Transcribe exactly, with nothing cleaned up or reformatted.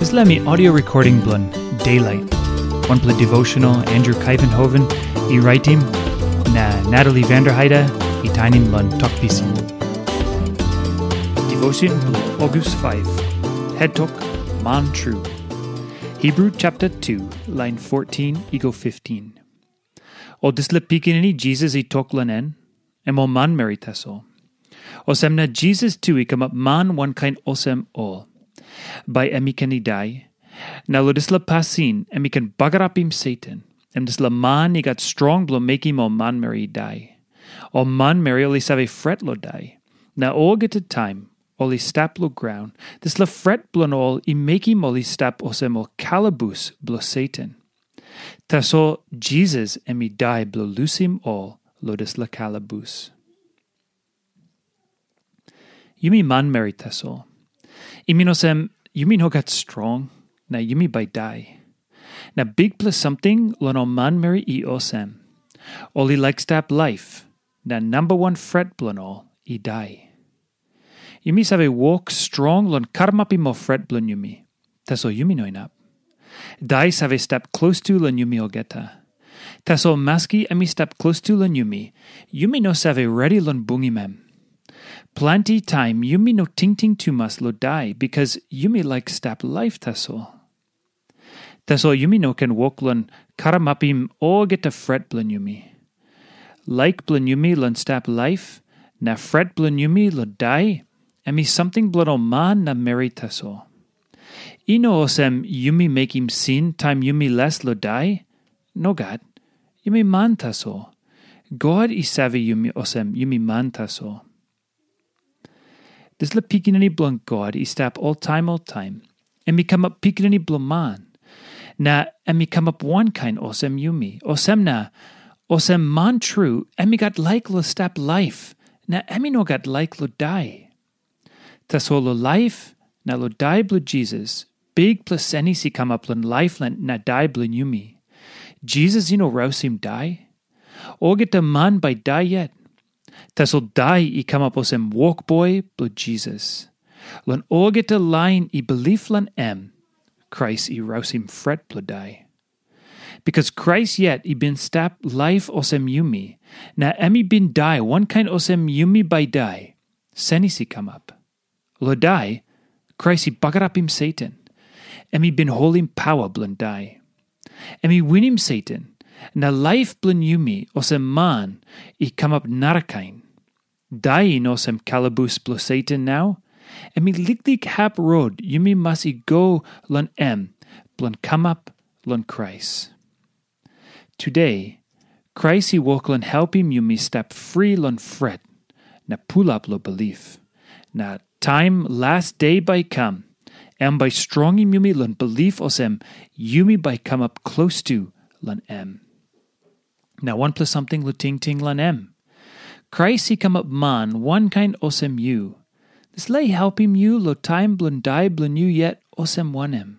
Dispela mi audio recording bilong Daylight, wanpela devotional Andrew Kaivenhoven i raitim, na Natalie Vanderheide i tainim long Tok Pisin. Devotion bilong August five, Het Tok, Man Tru. Hebrew chapter two, line fourteen i go fifteen. O dispela pikinini Jisas i tok long en, em ol manmeri tasol. Olsem na Jisas tu i kamap man wankain olsem ol. Bai em i ken i dai, na long dispela pasin em i ken bagarapim Satan, em dispela man i gat strong bilong mekim ol manmeri i dai. Ol manmeri ol i save fret long dai, na olgeta taim ol i stap long graun, dispela fret bilong ol i mekim ol i stap olsem ol kalabus bilong Satan. Tasol Jisas em i dai bilong lusim ol long dispela kalabus. Yumi manmeri tasol. I min olsem, yumi no gat strong, na yumi bai dai. Na bikpela samting long ol manmeri i olsem. Ol i laik stap laip, na namba wan fret bilong ol i dai. Yumi save wok strong long karamapim ol fret bilong yumi. Tasol yumi no inap. Dai save stap klostu long yumi olgeta. Tasol maski em i stap klostu long yumi, yumi no save redi long bungim em. Planti taim yumi no tingting tumas long dai bikas yumi laik stap laip tasol. Tasol yumi no ken wok long karamapim olgeta fret bilong yumi. Laik bilong yumi long stap laip, na fret bilong yumi long dai, em i samting bilong ol man na meri tasol. I no olsem yumi mekim sin taim yumi les long dai. Nogat, yumi man tasol. God i save yumi olsem yumi man tasol. Dispela Pikinini bilong God i stap oltaim oltaim. Em i kamap pikinini bilong man. Na em i kamap wankain olsem yumi. Olsem na, olsem man tru, em i gat laik long stap laip, na em i no gat laik long dai. Tasol long laip na long dai bilong Jisas, bikpela senis i kamap long laip na dai bilong yumi. Jisas i no rausim dai. Olgeta man bai dai yet. Tasol dai i kamap olsem wokboi bilong Jisas. Long olgeta lain i bilip long em, Krais i rausim fret bilong dai. Bikas Krais yet i bin stap laip olsem yumi, na em i bin dai wankain olsem yumi bai dai, senis i kamap. Long dai, Krais i bagarapim Satan. Em i bin holim paua bilong dai. Em i winim Satan, na laip bilong yumi olsem man i kamap narakain. Dai i no olsem kalabus bilong Satan nau. Em i liklik hap rot yumi mas i go long em bilong kamap long Krais. Tude, Krais i wok long helpim yumi stap fri long fret na pulap long bilip. Na taim las de bai i kam, em bai strongim yumi long bilip olsem yumi bai kamap klostu long em. Na wanpela samting long tingting long em. Krais i kamap man wankain olsem yu. Dispela i helpim yu long taim bilong dai bilong yu yet olsem wanem?